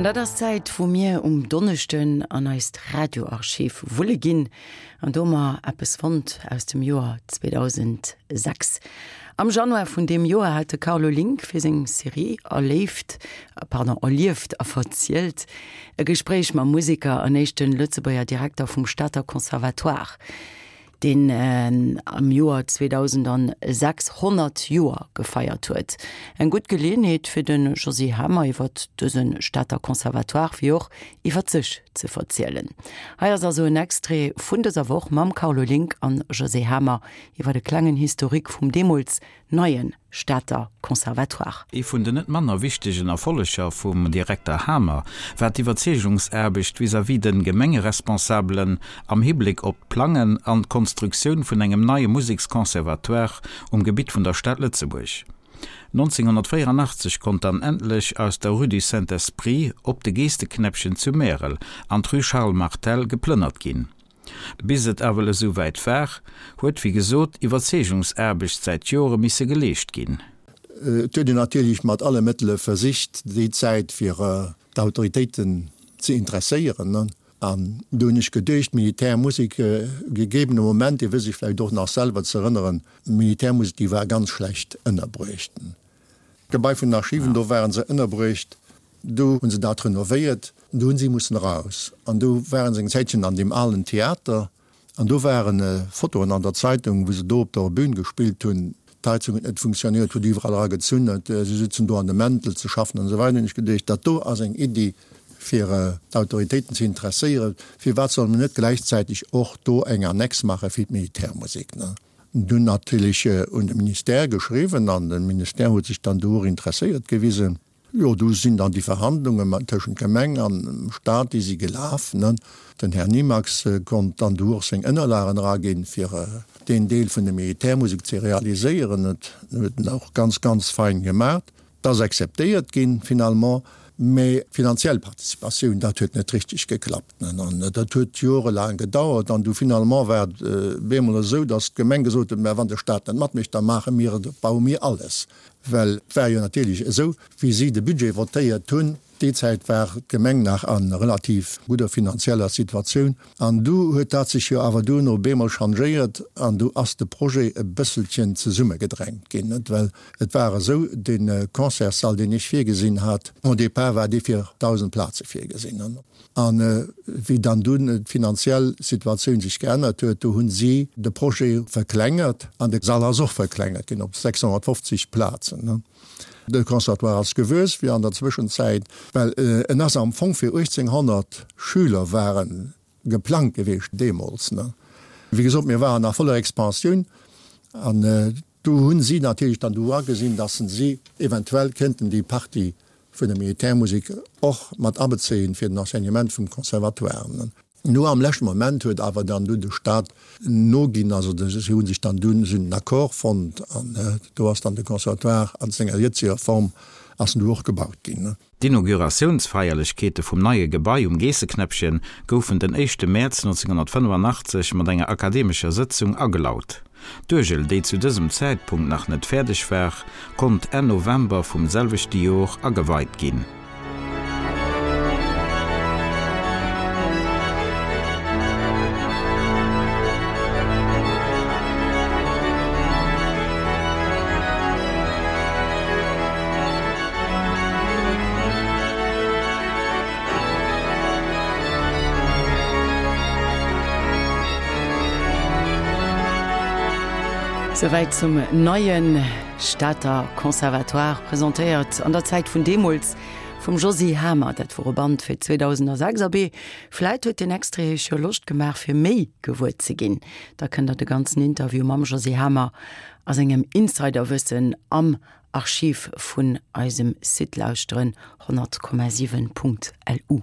An dat ass d'Zäit, wou mir um Donneschden an eist Radioarchiv wulle ginn. An do hu mer eppes fonnt aus dem Joer 2006. Am Januar vun deem Joer hat de Carlo Link fir seng Serie Erléift, pardon, Erlieft a verzielt e Gespréich mam Museker an éischte Lëtzebuerger Direkter vum Stater Conservatoire. deen am Joer 2006 100 Joer gefeiert huet. Eng gutt Geleeënheet fir de Josy Hamer iwwer dëse Stater Conservatoire wéi och iwwer sech ze verzielen. Hei ass also en Extrait vun dëser Woch mam Carlo Link an Josy Hamer iwwer e klengen Historique vum deemools neie Stater Conservatoire. Ee vun den net manner wichtegen Erfolleger vum Direkter Hamer war d'Iwwerzeegungsaarbecht vis-à-vis de Gemengeresponsabelen am Hibléck op d'Plangen an d'Konstruktioun vun engem neie Museksconservatoire um Gebitt vun der Stad Lëtzebuerg. 1984 konnt dann endlech aus der Rue du Saint-Esprit op de Geesteknäppchen zu Märel an d'Rue Charles Martel geplënnert ginn. Bis et ewell esou wäit war, huet wéi gesot Iwwerzeegungsaarbecht säit Jore misse geleescht ginn. Et huet een natierlech mat alle Mëttele versicht déi Zäit fir d'Autoritéiten ze interesséieren. An do hunn ech geduecht, d'Militärmusek, gegebene Moment, Dir wësst Iech vläicht och nach selwer ze erënneren, d'Militärmusek déi war ganz schlecht ënnerbruecht. D'Gebai vun den Archiven, do ware se ënnerbruecht, do hu se dat renovéiert, do hu si mussen eraus an do ware se eng Zäitchen an deem alen Theater an do ware Fotoen an der Zeitung, wou se do op der Bühn gespillt hunn. D'Heizung huet net funktionéiert, huet iwwerall eragezunn, si sutzen do an de Mäntel ze schaffen an esou weider. Hunn ech geduecht, dat do ass eng Iddi fir d'Autoritéiten ze interesséieren, firwat solle mer net gläichzäiteg och do eng Annex maache fir d'Militärmusek. Dunn natierlech un de Ministère geschriwwen an de Ministère huet sech dann do och interesséiert gewisen. Jo, du sinn dann déi Verhandlunge mat tëschent Gemeng an Stat, déi si gelaf. Den Här Nimax konnt dann du och seng Ënnerlagen eraginn, fir deen Deel vun der Militärmusek ze realiséieren. Dat huet en och ganz, ganz fein gemaach. Et ass acceptéiert ginn finalement, mä d'finanziell Participatioun, dat huet net richteg geklappt. An dat huet jorelaang gedauert. An du finalement war et bemol esou, datt d'Gemeng gesot huet, mä wann de Stat net matmécht, da maache mir et, baue mir alles. Well et war jo natierlech esou, wéi si de Budget votéiert hunn, Déi Zäit war d'Gemeng nach a relativ gudder finanzieller Situatioun an du huet dat sech jo awer duerno bemol changéiert an du ass de Projet e bësselchen zesummegedrängt ginn, net? Well et war esou, dee Concertssall, deen ech virgesinn hat, au départ war dee fir 1.000 Plaze virgesinn. An wéi dann dunn d'finanziell Situatioun sech geännert huet, do hu si de Projet verklengert an de Sall ass och verklengert ginn op 650 Plazen. De Conservatoire ass gewuess wéi an der Zwëschenzäit, well en ass am Fong fir 1800 Schüler ware geplangt gewiescht deemools. Wéi gesot, mir waren a voller Expansioun an do hu si natierlech dann do agesinn, datt si eventuell kéinten déi Partie vun der Militärmusek och mat abezéien fir den Enseignement vum Conservatoire. No am leschte Moment huet awer dann dunn de Stat noginn, also si hu sech dann dunn, si hunn en Accord fonnt an do ass dann de Conservatoire an senger jëtzeger Form ass en du och gebaut ginn. D'Inauguratiounsfeierlechkeete vum neie Gebai um Geesseknäppchen goufen den éischte Mäerz 1985 mat enger akademescher Sëtzung agelaut. D'Uergel, déi zu dësem Zäitpunkt nach net fäerdeg war, konnt Enn November vum selwechte Jor ageweit ginn. Souwäit zum neie Stater Conservatoire, presentéiert an der Zäit vun deemools vum Josy Hamer. Dat wor e Band fir 2006. Abee, vläit huet deen Extrait Iech jo Loscht gemaach fir méi gewuer ze ginn. Da kënnt der de ganzen Interview mam Josy Hamer a sengem Insiderwëssen am Archiv vun eisem Site lauschteren, 100,7.lu.